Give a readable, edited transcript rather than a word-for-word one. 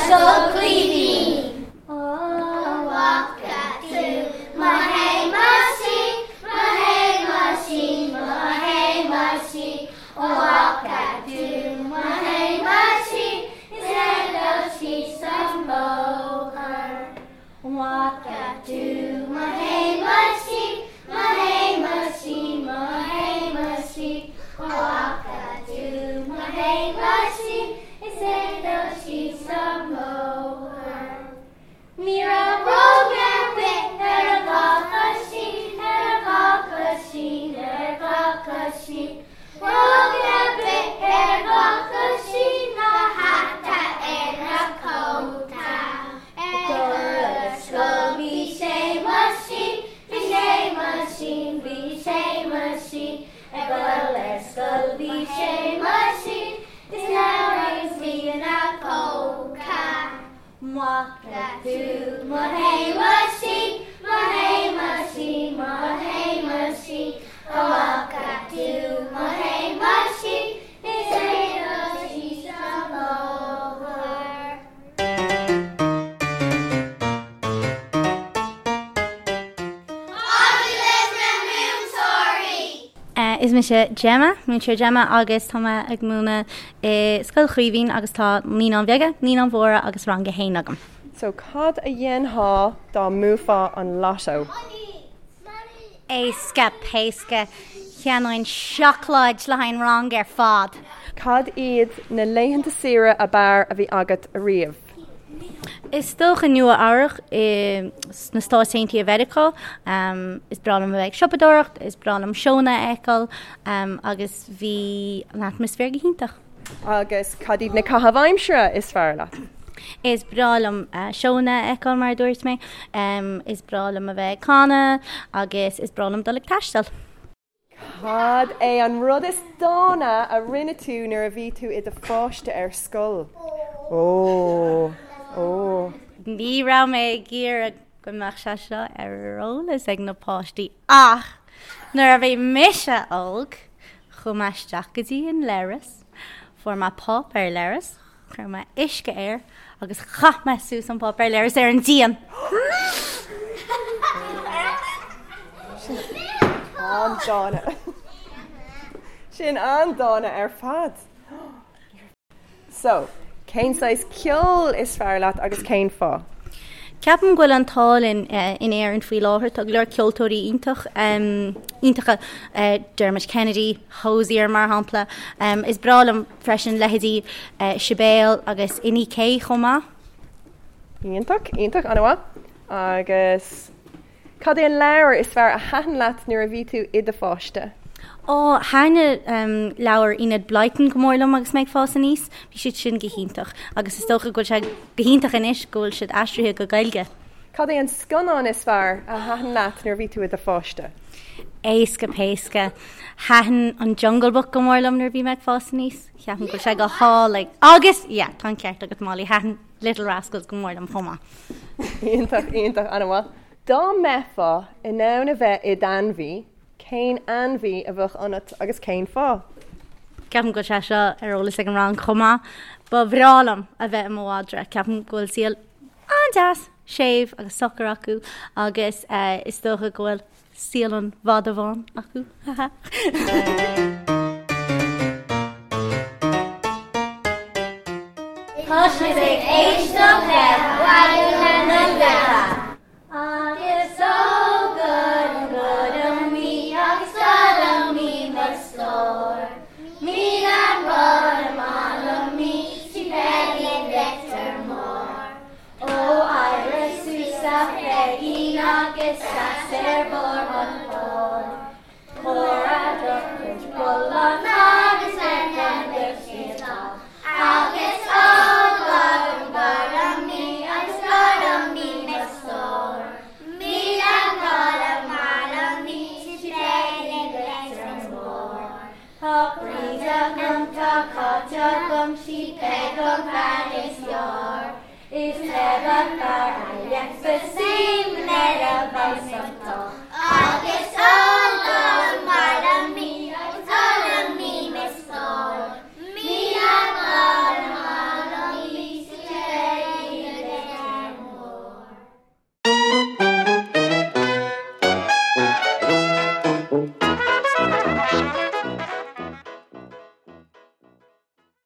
Scoil Chaoimhín. Ó bhfaca tú mo Shéamaisín, mo Shéamaisín, mo Shéamaisín, Ó bhfaca tú mo Shéamaisín is é ag dul síos an bóthar. Ó bhfaca tú mo Shéamaisín, mo Shéamaisín, mo Shéamaisín, Ó bhfaca tú mo Shéamaisín is é ag dul síos an bóthar. Ní raibh bróg ar bith ar a dhá choisín, ar a dhá choisín, ar a dhá choisín. Bróg ar bith ar a dhá choisín ná hata ar a cóta. Ag dul ar scoil bhí Séamaisín, bhí Séamaisín, bhí Séamaisín. Ag dul ar scoil bhí Séamaisín, is leabhar agus bhí ina phóca. Bhfaca tú mo Shéamaisín, mo Shéamaisín, mo Shéamaisín, Ó bhfaca tú mo Shéamaisín is é ag dul síos an bóthar. Agallamh na Múinteoirí! Is mise Gemma, Múinteoir Gemma agus tá mé ag múineadh i Scoil Chaoimhín agus tá Naíonáin Bheaga, Naíonáin Mhóra agus Rang a hAon agam. So cad a dhéanfá dá mbuafá an lotto? Éasca péasca, cheannóinn seacláid le haghaidh an rang ar fad! Cad iad na laethanta saoire ab fhearr a bhí agat ariamh? Is dócha Nua Eabhrac i sna Stáit Aontaithe Mheiriceá. Is breá liom a bheith ag siopadóireacht, is breá liom seónna a fheiceáil agus bhí an atmaisféar go hiontach. Agus cad iad na caithimh aimsire is fearr leat? Is breá liom seónna a fheiceáil mar a dúirt mé. Is breá liom a bheith ag canadh agus is breá liom dul ag taisteal. Cad é an rud is dána a rinne tú nuair a bhí tú i do pháiste ar scoil? Ó! Ó! Ní raibh mé ag iarraidh go mbeadh sé seo ar eolas ag na páistí ach nuair a bhí mise óg, chuaigh mé isteach go dtí an leithreas, fuair mé páipéar leithris, Chuir mé uisce air agus chaith mé suas an páipéar leithris ar an díon. Sin an-dána. Sin an-dána ar fad. So, cén saghas ceoil is fearr leat agus cén fáth? Ceapaim go bhfuil an t-ádh linn in Éirinn faoi láthair. Tá go leor ceoltóirí iontach, iontacha, Dermot Kennedy, Hozier mar shampla. Is breá liom freisin leithéidí Sibéal agus Inni-K chomh maith. Iontach, iontach, an-mhaith. Agus cad é an leabhar is fearr a thaitin leat nuair a bhí tú i do pháiste? Ó, thaitin leabhair Enid Blyton go mór liom agus mé ag fás aníos. Bhí siad sin go hiontach agus is dócha go bhfuil sé go hiontach anois go bhfuil siad aistrithe go Gaeilge. Cad é an scannán is fearr a thaitin leat nuair a bhí tú i do pháiste? Éasca péasca. Thaitin an Jungle Book go mór liom nuair a bhí mé ag fás aníos. Ceapaim go bhfuil sé go hálainn. Agus, yeah, tá an ceart agat Molly, thaitin Little Rascals go mór liom chomh maith. Iontach, iontach, an-mhaith. Dá mbeifeá in ann a bheith i d'ainmhí, cén ainmhí a bheadh ionat agus cén fáth? Ceapaim go bhfuil sé seo ar eolas ag an rang chomh maith. Ba bhreá liom a bheith i mo mhadra. Ceapaim go bhfuil saol an-deas, séimh agus socair acu agus is dócha go bhfuil saol an mhadra bháin acu. Haha. Tá sibh ag éisteacht le Raidió na Life. Agus ó goirim goirim í agus goirim í mo stór. Míle rud ar maith liom í sí Peigí Leitir Móir. Ó éirigh suas a Pheigín agus seas ar bharr an phoill. Tabhair do chuid bullán agus lena mbeidh siad dall. Agus ó goirim goirim í agus goirim í mo stór. 1000 rud ar maith liom í sí Peigí Leitir Móir. Tá Bríd agam, tá Cáit agam, sí Peig an bhean is fearr. Is never fear I left the same, never by some.